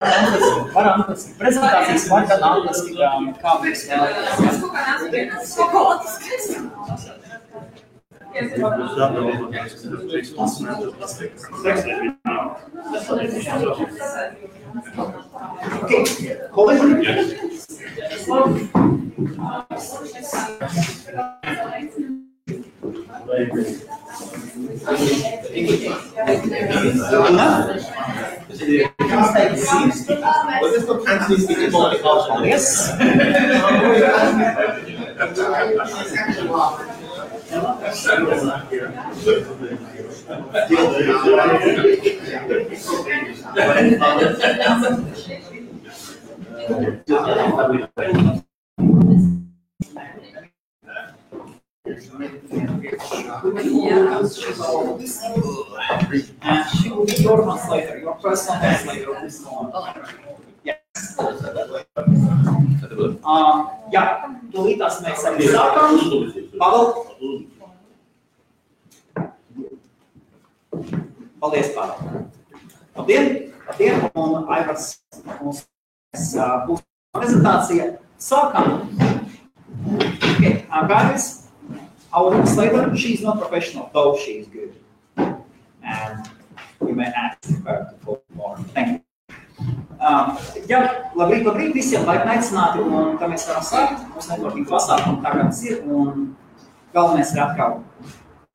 Varam atlasīt prezentācijas, var tad atlasīt, kā mēs Yes. And she will be your translator, your personal translator of this moment. Yes. Jā, tūlītās mēs arī sākam. Pavel. Paldies, Pavel. Labdien, un Aivars mums būs prezentācija. Sākam. Okay, guys, our translator, she's not professional, though she is good. And you may ask her to talk more. Thank you. Labrīt, visiem laipni aicināti, un tā mēs varam sākt. Mums networking pasākumu tagad ir, un galvenais ir atkal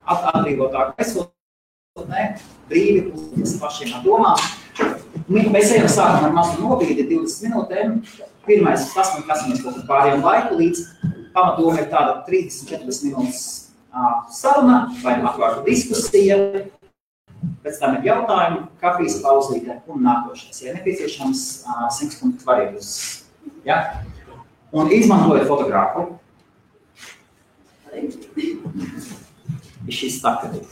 atbrīvotā gaisotnē, brīvi uz pašiem ar domām. Mēs ejam sākam ar mazu nobīdi 20 minūtēm. Pirmais, kas mēs kaut pārējām laiku, līdz pamatdoma ir tāda 30-40 minūtes saruna vai atvārta diskusija. Pēc tam ir jautājumi, kafijas pauzīte un nākošais. Ja nepieciešams, 100 punktu varības. Ja? Un izmantojot fotogrāfu. She's stuck at it.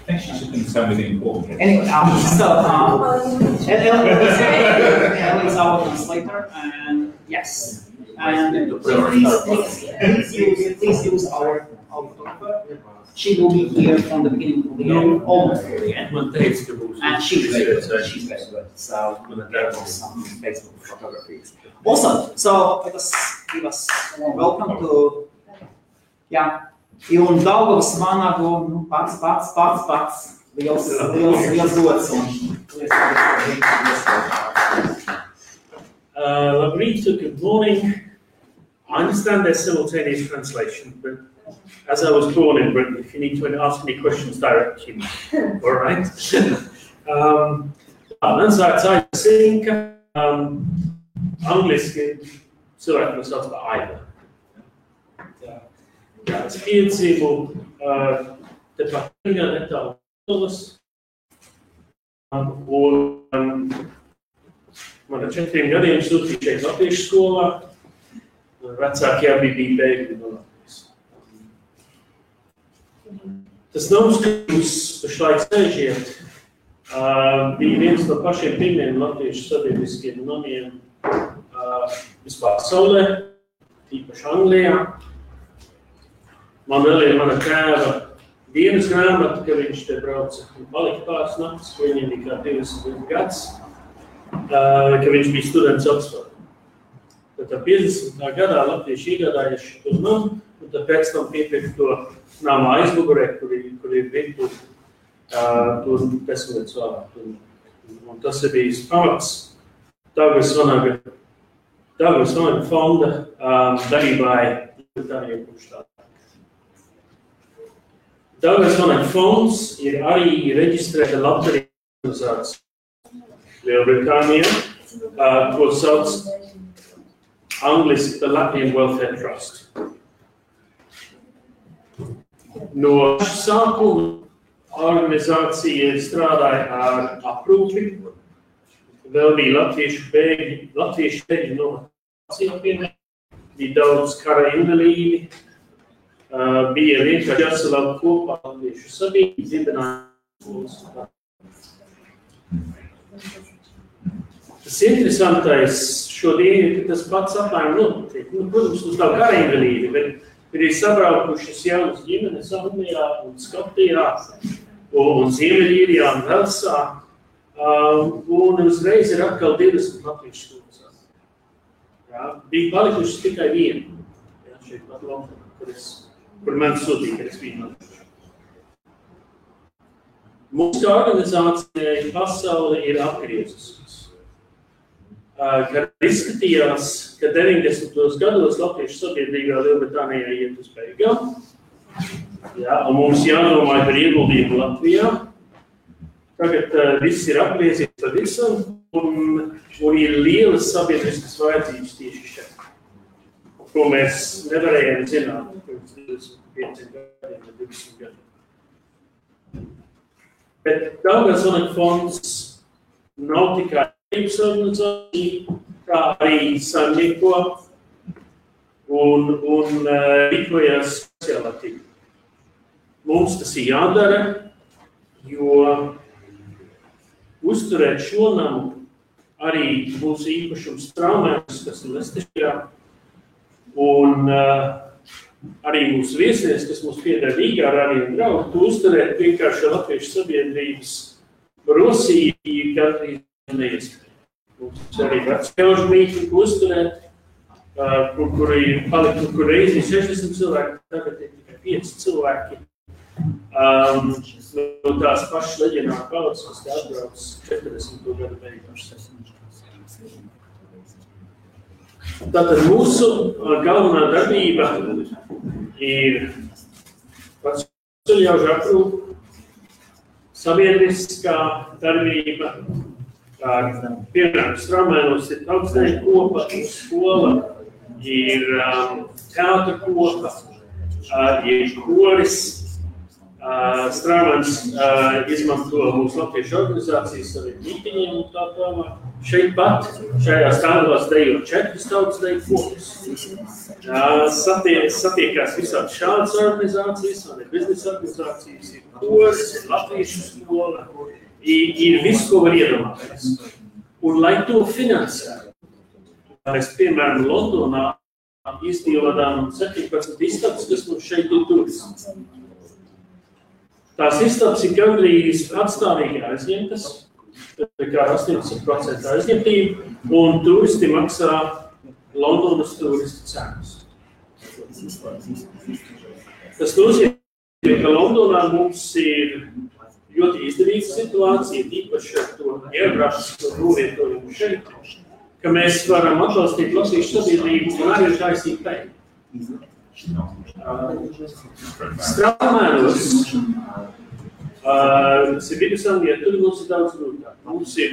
I think she's doing something important. Anyway, Elle is our translator, and yes. And please use our photographer. She will be here from the beginning to the end, almost to the end. And she's very good. She's very good. So there was some Facebook photographies. Awesome. So let us give us a welcome to un Daugavas Vanagu, pats. Liels gods. Labrīt, good morning. I understand there's simultaneous translation, but as I was born in Britain, if you need to ask any questions, direct me. All right. Ansāca angliski cilvēki no sauc par Aiva. Es piedzīvu tepat netālu Lietuvas, un man ar 4 gadiem sūtīja šeit latviešu skolā, un vecāki abi bija bēgļi no Latvijas. Tas nams, ka jūs pašlaik sēžiet, bija viens no pašiem pirmiem latviešu sabiedriskiem namiem vispār pasaulē, tīpaši Anglijā. Man vēl ir mana tēva dienas grāmata, ka viņš te brauca un palika pāris naktis, ka viņam bija kā 20 gads, ka viņš bija students Oxfordā. Tad 50. gadā latvieši iegādājuši to namu, un tad pēc tam piepirka to nama aizmugurē, kur ir virtuve, tur 10 gadus vēlāk. Un tas ir bijis pamats Daugavas Vanaga fonda darbībai Lietuvāniem kopš tā. Daugavas Vanaga fonds ir arī reģistrēta labdarības organizācija Lielbritānijā, ko sauc angliski The Latvian Welfare Trust. No sākuma organizācija strādāja ar aprūpi, vēl bija latviešu bēgļi no Etiopijas, bija daudz kara invalīdi, bija vienkārši jāsalāk kopā latviešu sabiedrību, dibināja. Tas interesantais šodien ir, ka tas pats apmēram notiek. Protams, mums nav kara invalīdi, bet ir sabraukušas jaunas ģimenes Anglijā un Skotijā un Ziemeļīrijā un Velsā, Un uzreiz ir atkal 20 latviešu skolas. Jā, bija palikušas tikai viena. Jā, šeit pat Londonā, kur man sūtīja, ka es biju latviešu. Mūsu organizācijai pasauli ir apgriezusies. Kad izskatījās, ka 90. gados latviešu sabiedrībā Lielbritānijā iet uz beigām, jā, un mums jādomāja par ieguldījumu Latvijā. Tagad viss ir apgriezies par visam, un ir lielas sabiedriskas vajadzības tieši šeit, ko mēs nevarējām zināt pirms 25 gadiem vai 20 gadiem. Bet Daugavas fonds nav tikai organizācija, kā arī saimnieko un rīkojas sociālā tīkla. Mums tas ir jādara, jo uzturēt šo namu arī mūsu īpašums Straumēnas, kas ir Lestešajā, un arī mūsu viesnieks, kas mums pieder Rīgā, arī un draugi, to uzturēt vienkārši latviešu sabiedrības Rosija gandrīz neiespēja. Mums arī vecjaužu mītņu uzturēt, kur reizi 60 cilvēki, tagad ir tikai 5 cilvēki. No tās pašas leģionāra paudzes, kas te atbrauc 40. gadu beigās. Tātad mūsu galvenā darbība ir vecjaužu aprūpe, sabiedriskā darbība, piemēram, Straumēnos ir augstsdeju kopa, skola, ir teātra kopa, ir koris. Straumēns izmanto mūsu latviešu organizācijas saviem mītiņiem un tā tālāk. Šeit pat, šajā stāvās dejo 4 tautas deju kopas. Satiekās visādi šādas organizācijas, un ir biznesa organizācijas, ir koris, ir latviešu skola, ir viss, ko var iedomāties. Un lai to finansētu, mēs, piemēram, Londonā izdīvadām 17 istabas, kas mums šeit ir turisms. Tās istabas ir gandrīz atstāvīgi aizņemtas, kā 80% aizņemtība, un turisti maksā Londonas turistu cenas. Tas nozīmē, ka Londonā mums ir ļoti izdevīga situācija, īpaši ar to geogrāfisko novietojumu šeit, ka mēs varam atbalstīt latviešu sabiedrību un arī taisīt peļņu. Straumēnos, tas ir Vidusanglijā, tur mums ir daudz grūtāk. Mums ir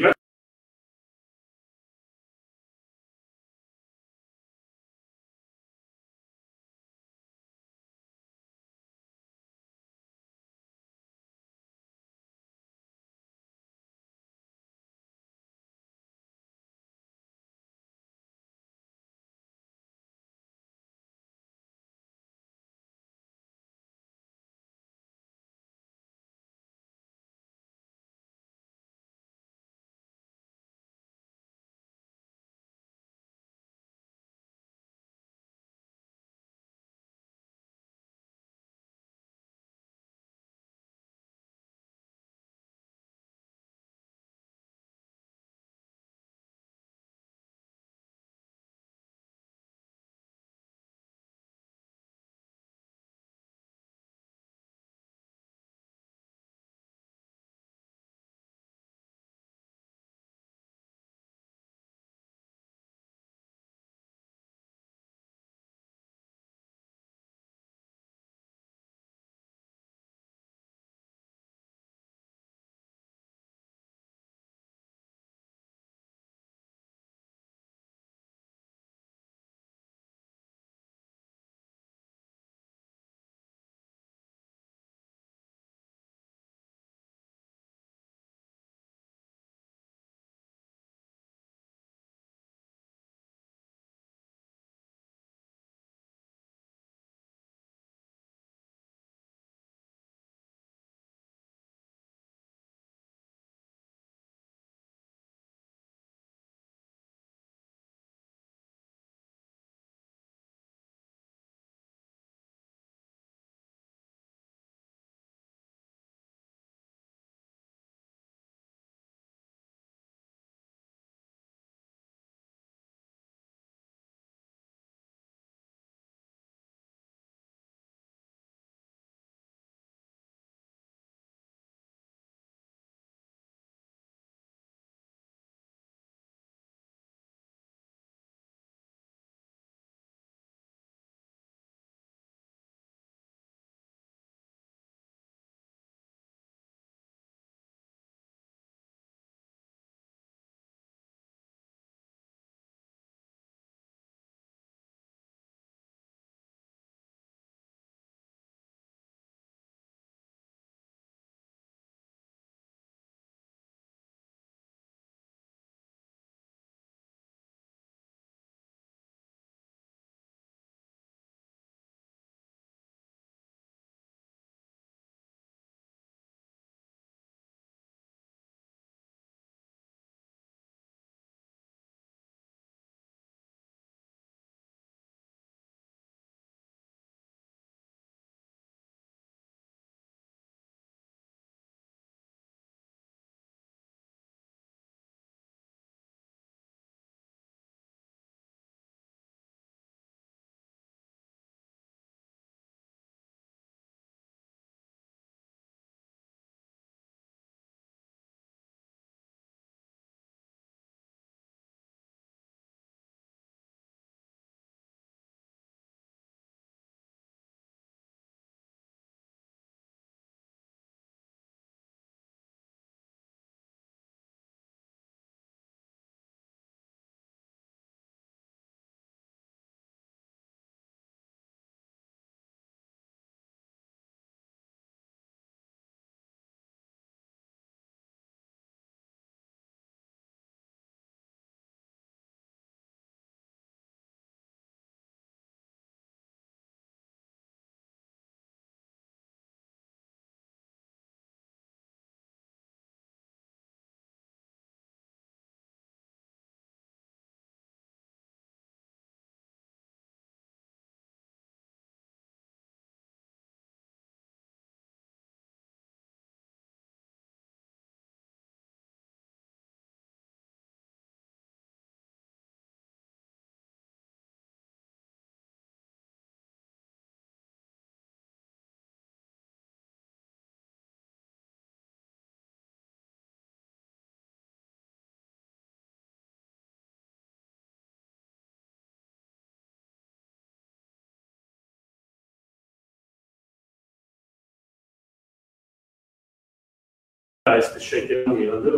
kas šeit ir un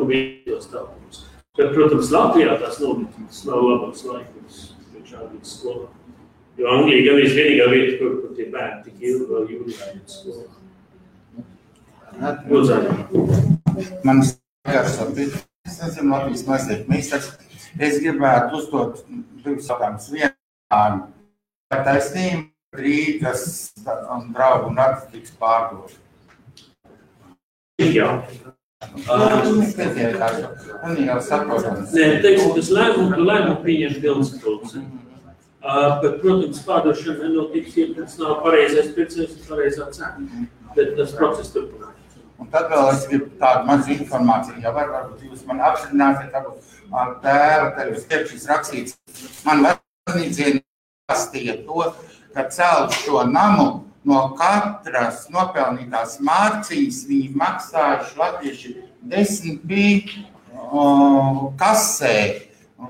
vietos tālums. Bet, protams, Latvijā tās nometnes nav labāks laikums šādīt skolā. Jo Anglija gan vienīgā vieta, kur tie bērni tik ilgi vēl jūlijā iet skolā. Man skatās, es nezinu, Latvijas mazliet mīstaks. Es gribētu uzdot divus jautājumus. Vienā, vai taisnība Rīgas un draugu nakts tiks pārdot? Jā. Man jau saprotams. Nē, teiksim, tas lēmumu pieņem pilnskapulce. Bet, protams, pārdošana nenotiks, ja tas nav pareizais pircējs un pareizā cena. Bet tas process turpinās. Un tad vēl es gribu tādu mazu informāciju, ja varbūt jūs man apstiprināsiet, tādu tēva, tad jūs tiekšīs rakstīts. Man vecnīdzieni pastīja to, ka celt šo namu no katras nopelnītās mārciņas viņi maksājuši latvieši 10 kasē,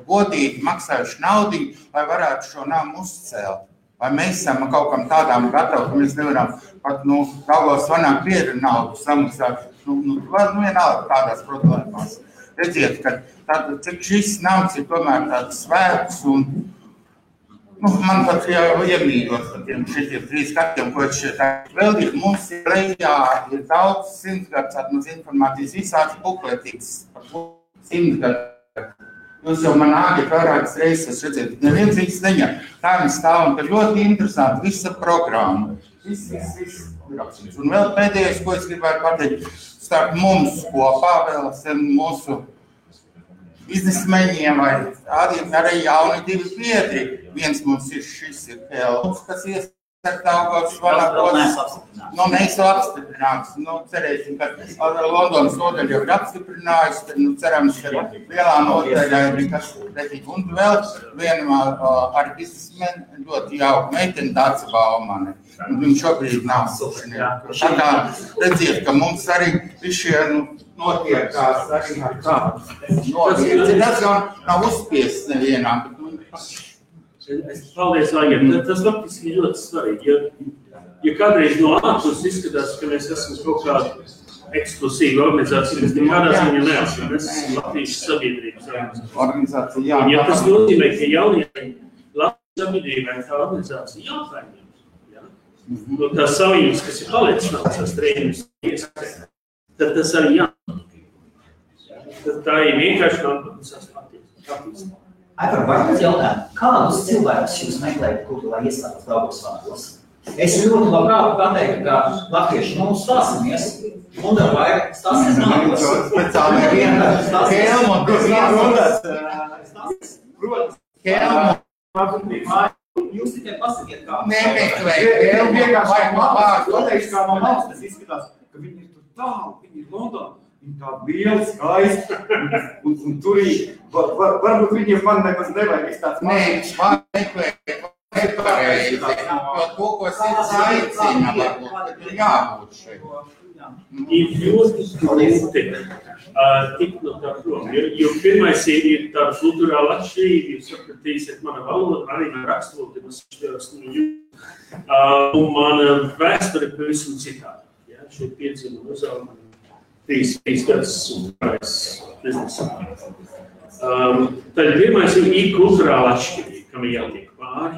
godīgi maksājuši naudiņu, lai varētu šo namu uzcelt. Vai mēs esam kaut kam tādām gatavi, ka mēs nevaram pat, Daugavas vanā biedru naudu samaksāt, vienalga tādās problēmās. Redziet, ka cik šis nams ir tomēr tāds svēts un man pat jau iemīļot par tiem šitiem 3 gadiem, ko šeit vēldīt. Mums ir lejā, ir daudz 100 gadus atmaz informācijas, visāds bukletīgs par 100 gadus. Jūs jau man āgiet vairākas reizes, redzēt, neviens viņas neņem. Tā viņi stāv un ir ļoti interesanti, visa programma. Viss. Un vēl pēdējais, ko es gribētu pateikt, starp mums kopā vēl mūsu biznesmeņiem vai arī jauni 2 biedri. Viens mums ir šis ir Helms, kas Daugavas vanā mēs jau apstiprināts. Cerēsim, ka Londonas nodaļa jau ir apstiprinājusi, tad cerams, ka lielā nodaļa ir nekas pretīgi. Un vēl viena ar biznesmeni ļoti jauka meiteni Dāca Baumane. Viņa šobrīd nav sušanieka. Tā kā redziet, ka mums arī šie notiekās arī ar kādu. Tas gan nav uzspiests nevienā, bet Paldies, Aigam. Tas faktiski ļoti svarīgi. Ja kādreiz no ārpus izskatās, ka mēs esam kaut kāda eksklusīva organizācija, mēs nekādā ziņā neesam. Mēs esam Latvijas sabiedrības organizācija. Jā, un ja tas nozīmē, ka jaunajai Latvijas sabiedrībai tā organizācija jāpaņem. Tās saviņas, kas ir palicis nav tās trējumus iespējas, tad tas arī Tad tā ir vienkārši nākotnes attīstība. Aivar, vai jūs jautājat, kādus cilvēkus jūs meklējat kultūrā iestādes Daugavas vanās? Es ļoti labprāt pateiktu, ka latvieši stāsimies, un vai stāsies nākos. Speciāli viena Kelma, kas Jūs tikai pasakiet, kā. Nemeklēt. Kelma vienkārši pateikšu, kā man valsts, tas izskatās, ka viņi ir tur tālu, viņi ir Londonā. Viņi tādi lieli, skaisti, un turīgi. Varbūt viņiem man nemaz nevajag tāds mazs. Nē, nepareizi. Jo to, ko sirds aicina, varbūt jābūt šeit. Ir ļoti grūti tikt no tā prom, jo pirmais ir tāda kulturāla atšķirība, jūs sapratīsiet mana valoda, arī man rakstvalodi, un mana vēsture pavisam citādi. Šeit piedzima uzauga 3 gadus un pārējais biznesā. Tad pirmais ir kulturāla atšķirība, kam ir jātiek pāri.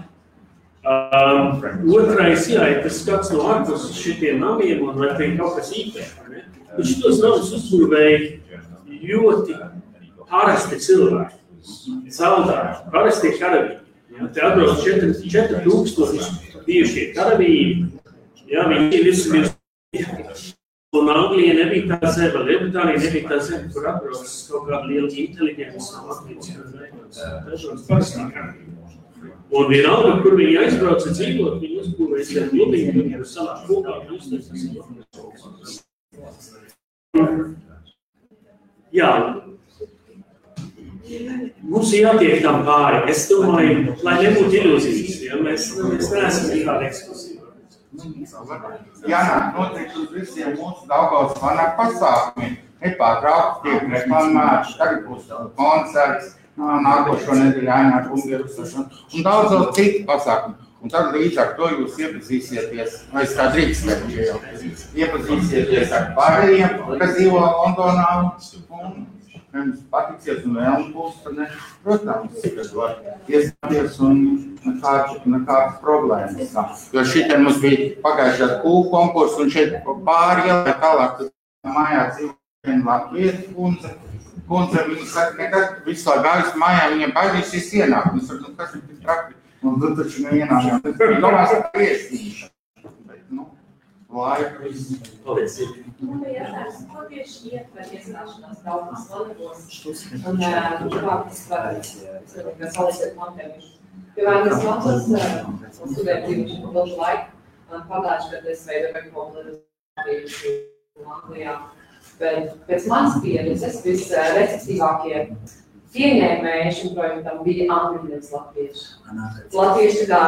Otrais, ja tas skats no ārpus šitiem namiem un vai te ir kaut kas īpaši. Bet šitos namus uzbūvēja ļoti parasti cilvēki, saldāri, parasti karavīri. Te atbrauc 4000 bijušie karavīri, viņi visi un Anglija nebija tā zeme, Lielbritānija nebija tā zeme, kur atbrauc kaut kāda liela inteliģence no Latvijas. Dažādas parastā karavīri. Un vienalga, kur viņi aizbrauca dzīvot, viņi uzbūvēja gan gludīgi, viņi ir sanāk kopā, Jā, mums ir jātiek tam pāri. Es domāju, lai nebūtu ilūzijas, mēs neesam nekāda eksklusīva. Jānāk noteikti uz visiem mūsu Daugavas vanā pasākumiem. Nepārtraukti tiek reklamēti, tagad būs koncerts, nākošo nedēļu jānāk un daudz citu pasākumu. Un tad līdz ar to jūs iepazīsieties, vai es tā drīkstētu, iepazīsieties ar pārējiem, kas dzīvo Londonā, un jums patiksies un vēl būs, tad ne, protams, kas var iestāties un nekādas problēmas. Jo šitien mums bija pagājušās kūku konkursu, un šeit pāri ielai tālāk, tad mājā dzīvo viena latviešu kundze, viņa saka, nekad visu laiku gājus mājā, viņiem baidīsies ienākt. Es saku, kas ir tik traki? Un tu taču neienākām. Tas bija domās ar priestīšu. Bet, laika viss. Paldies. Man bija jātājums, ko tieši ietver iestāšanās daudzās valodās un kā tas var salīdzēt Montevišu. Jo vai es mācos studēt dzīvošu ilgu laiku, pagājuši, kad es veidoju popularizāciju Anglijā. Bet pēc manas pieredzes visreceptīvākie pieņēmēji šim projektam bija angļu nevis latvieši. Latvieši kā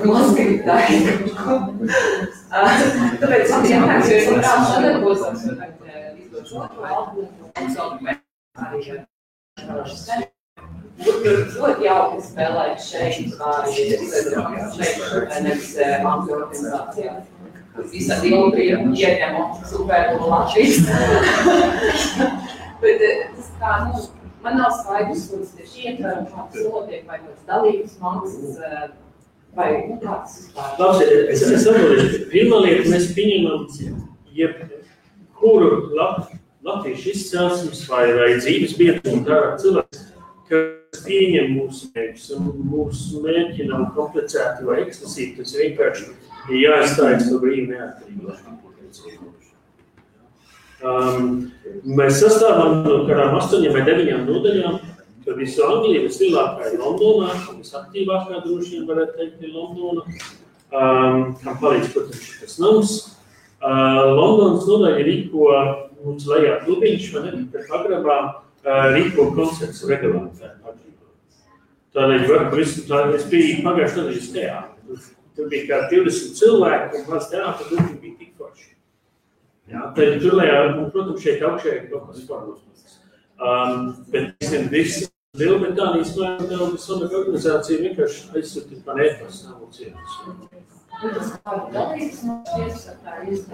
mazgribtāji. Tāpēc man jāmēks, jo es labprāt sadarbos izdot šo albumu un savu arī ļoti jauki spēlēt šeit, nevis angļu organizācijā. Visādi ilgi ieņemu super Latvijas. Bet tas kā, man nav skaidrs, kuras tieši ietver un kāds notiek, vai kāds dalības maksas, vai kāds vispār. Labi, es atbildēšu. Pirmā lieta, mēs pieņemam jebkuru latviešu izcelsmes vai dzīves biedru un kā cilvēks, kas pieņem mūsu mērķus. Un mūsu mērķi nav komplicēti vai eksklusīvi, tas vienkārši ir jāizstājas to brīvi neatkarību. Mēs sastāvam no kādām 8 vai 9 nodaļām, ka visu Angliju vislielākā ir Londonā, visaktīvākā droši vien varētu teikt ir Londona, kam palīdz, protams, šitas nams. Londonas nodaļa rīko mums lejā klubiņš, vai ne, kad pagrabā rīko koncerts regulāri. Tādēļ es biju pagājuši nedēļas teātri. Tur bija kā 20 cilvēki, un maz teātra grupi bija tik forši. Jā, tad tur lejā, un, protams, šeit augšē ir kaut kas formos. Bet visi Lielbritānijas mājumdēļas organizācija vienkārši aizsūtīt man e-pasta nav cietas.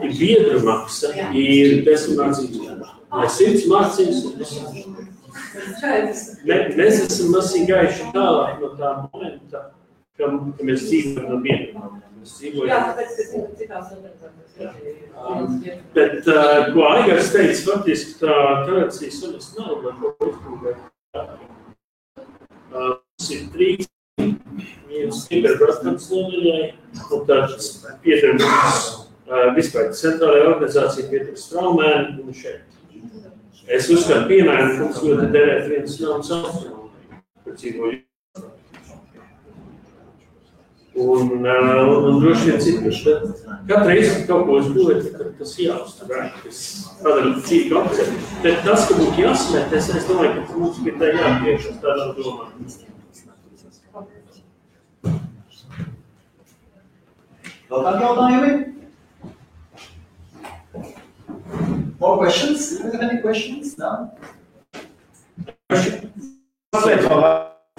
Ir biedru maksa, ir 10 mācības. Vai 100 mācības un 10. Mēs esam masīgi gājuši tālāk no tā momenta, ka mēs dzīvojam no biedriem. Jā, tāpēc, ka citās organizācijas. Bet, ko Aigars teica, faktiski tā tradīcijas sunas nav, lai ko uzbūvēt. Mums ir 3, viens Kiberbrastams nodaļai, un tāds pieder mums vispār centrālajā organizācija pieder Straumēni un šeit. Es uzskatu, piemēram, ka mums ļoti derēt viens jauns austrumā, kur dzīvoju. Un droši vien citus. Katru reizi, kad kaut ko uzbūvēt, tas jāuztur, tas padara cīku apceļu. Bet tas, ka būtu jāsmēt, es domāju, ka mums bija tā jāpriekšas tādā domā. Vēl kādi jautājumi? More questions? Any questions? No? Es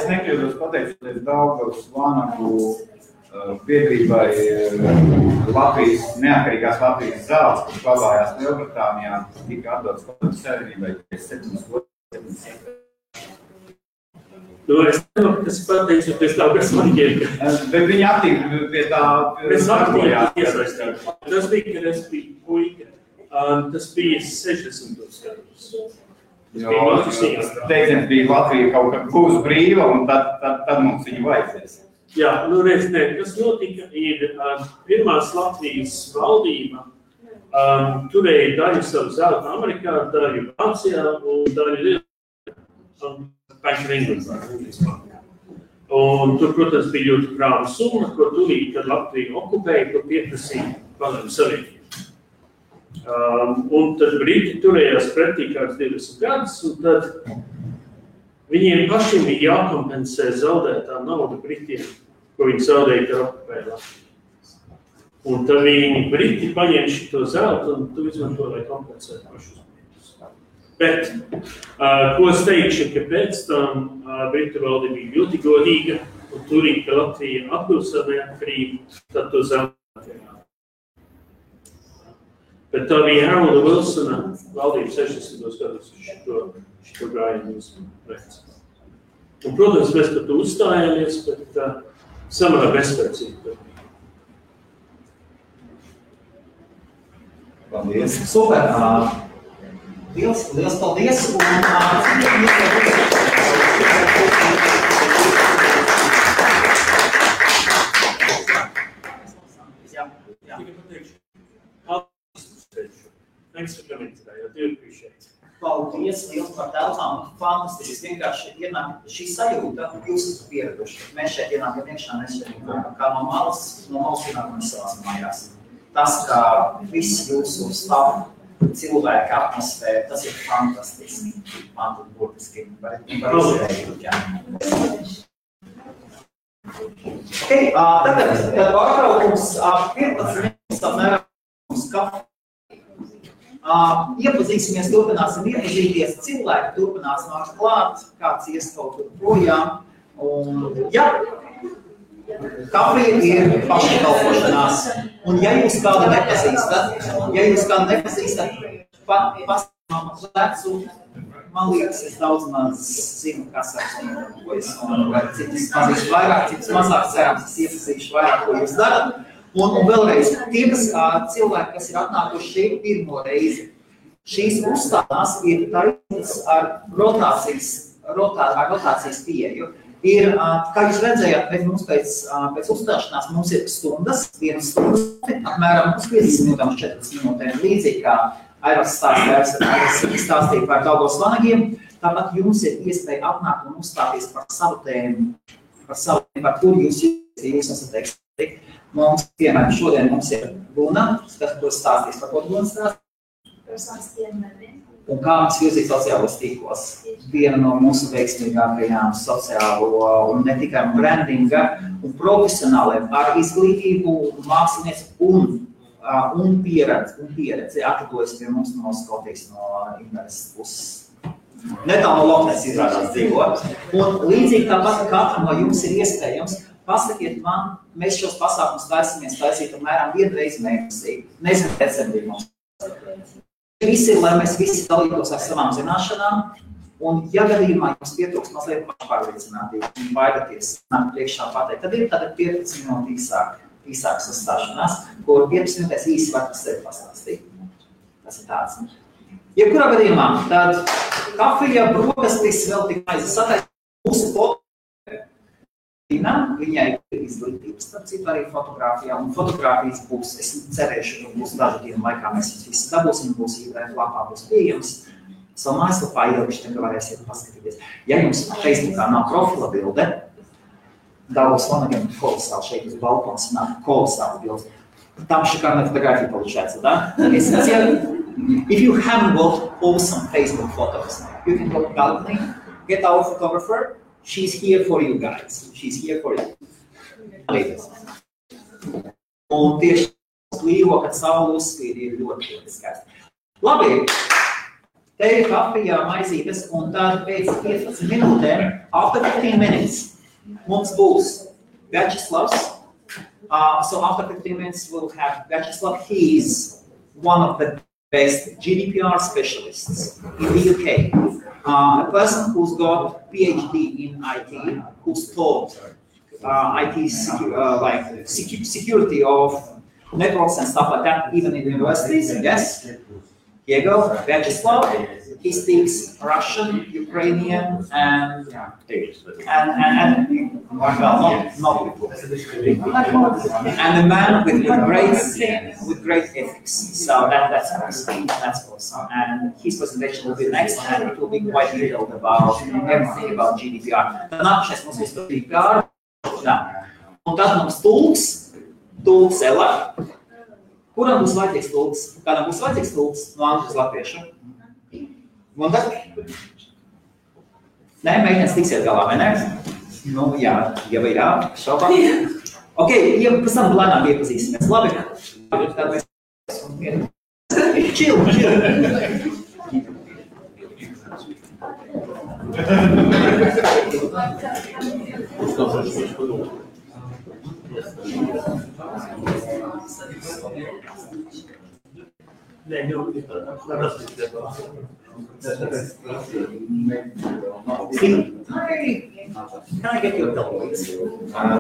nekļūdos pateicoties Daugavas vanagu biedrībai Latvijas, neatkarīgās Latvijas zāles, kas glabājās Lielbritānijā, tika atdots Padomju Savienībai 7 gadus. Es nezinu, kas pateicoties Daugavas vaņģiem. Bet viņi aktīvi pie tā... Mēs aktīvi iesaistījām. Tas bija, kad es biju puika. Tas bija 60 gadus. Jo teiciens bija Latvija kaut kad būs brīva, un tad mums viņu vajadzēs. Jā, reiz ne. Kas notika, ir pirmās Latvijas valdība turēja daļu savu zelta Amerikā, daļu Vācijā un daļu Bank of England. Un tur, protams, bija ļoti krāva summa, ko turīja, kad Latvija okupēja, ko pieprasīja Padomju Savienību. Un tad Briti turējās pretī kāds 20 gadus, un tad viņiem pašiem bija jākompensē zaudētā nauda Britiem, ko viņi zaudēja, kad okupēja Latviju. Un tad viņi Briti paņēma šito zeltu un tu izmanto, lai kompensētu pašus Britus. Bet, ko es teikšu, ka pēc tam Britu valdība bija ļoti godīga un turīgi, ka Latvija atgūst savu neatkarību, tad to zaudēt. Bet tā bija Harolda Wilsona valdība 60. gados šo gājienu veids. Un, protams, mēs par to uzstājāmies, bet samērā bezspēcīgi. Paldies. Super. Liels paldies. Thanks for coming today. I do appreciate it. Paldies liels par telpām. Fantastiski. Vienkārši ienāk šī sajūta, jūs esat pieraduši. Mēs šeit ienākam iekšā, mēs šeit kā no malas ienākam savās mājās. Tas, kā viss jūsu stāv cilvēka atmosfēra, tas ir fantastiski. Man tur burtiski par izvērību. Okay, tagad pārtraukums 15 minūtes apmēram uz kafiju. Iepazīsimies, turpināsim iepazīties, cilvēki turpinās nākt klāt, kāds ies kaut kur projām. Un, jā, kafija ir paškalpošanās. Un ja jūs kādu nepazīstat, pastāvam lecu, man liekas, es daudz maz zinu, kas apstāvojas. Vai citas pazīst vairāk, citas mazāk, cerams, es iepazīšu vairāk, ko jūs darat. Un vēlreiz, tie, cilvēki, kas ir atnākuši šeit pirmo reizi, šīs uzstādās ir taisnītas ar rotācijas pieeju. Ir, kā jūs redzējāt, mums pēc uzstāšanās mums ir stundas, vienas stundas, apmēram 50 minūtēm, 40 minūtēm, līdzīgi kā Airas stāstīja par Daugavas vanagiem. Tāpat jums ir iespēja atnākt un uzstāties par savu tēmu, par kuru jūs esat eksperti. Mums, piemēram, šodien mums ir Luna, kas stāstīs par ko Luna stāstīs. Un kā mums virzīt sociālos tīklos. Viena no mūsu veiksmīgākajām sociālo un ne tikai brandinga un profesionāliem ar izglītību, mākslinieci un pieredzi atradojas pie mums no Skotijas, no Inveres puses. Netālu no Loknes izrādās dzīvo. Un līdzīgi tāpat katram no jums ir iespējams. Pasakiet man, mēs šos pasākumus taisīt apmēram vienu reizi mēnesī. Nezinu, decembrī mums. Visi, lai mēs visi dalītos ar savām zināšanām, un ja gadījumā jums pietrūks mazliet pašpārliecinātība un baidaties nākt priekšā pateikt, tad ir tāda 15 minūte īsākas uzstāšanās, kur 15 minūtēs īsi var par sevi pastāstīt. Tas ir tāds. Jebkurā gadījumā, tad kafija, brokastis, vēl tik maize sataisa mūsu Viņai ir izglītības, starp citu arī fotogrāfijā, un fotogrāfijas būs, es cerēšu, ka būs dažu dienu laikā mēs visi dabūsim, būs īvēr lapā, būs pieejams. Savu mājaslapā ielikuši, tad varēsiet paskatīties. Ja jums Facebookā nav profila bilde, Daugavas vanagiem kolosāli šeit uz balkons nāk kolosāli bilde. Tam šikārna fotogrāfija получается, да? If you haven't got awesome Facebook photos, you can go to balcony, get our photographer. She's here for you guys. She's here for you. Un tieši klīvo, kad saule uzspīd, ir ļoti skaisti. Labi, te ir kafija, maizītes, un tad pēc 15 minūtēm, after 15 minutes, mums būs Vячeslavs. So after 15 minutes, we'll have Vyacheslav. He is one of the best GDPR specialists in the UK. A person who's got PhD in IT, who's taught IT security of networks and stuff like that, even in universities. Yes, here you go, Vyacheslav. He speaks Russian, Ukrainian, and a man with great ethics. So that's awesome. That's awesome. And his presentation will be next, and it will be quite detailed about everything about GDPR. Nākamais mums būs par GDPR. Un tad mums tulks Ela. Kuram būs vajadzīgs tulks? Kādam būs vajadzīgs tulks no angļu uz latviešu? Un tad? Nē, meitenes tiksiet galā, vai ne? Nu, jā, ja vai jā, šaubā. Ok, pēc tam lēnām iepazīsimies. Labi, tad mēs... Chill. Can I get you a bill, please?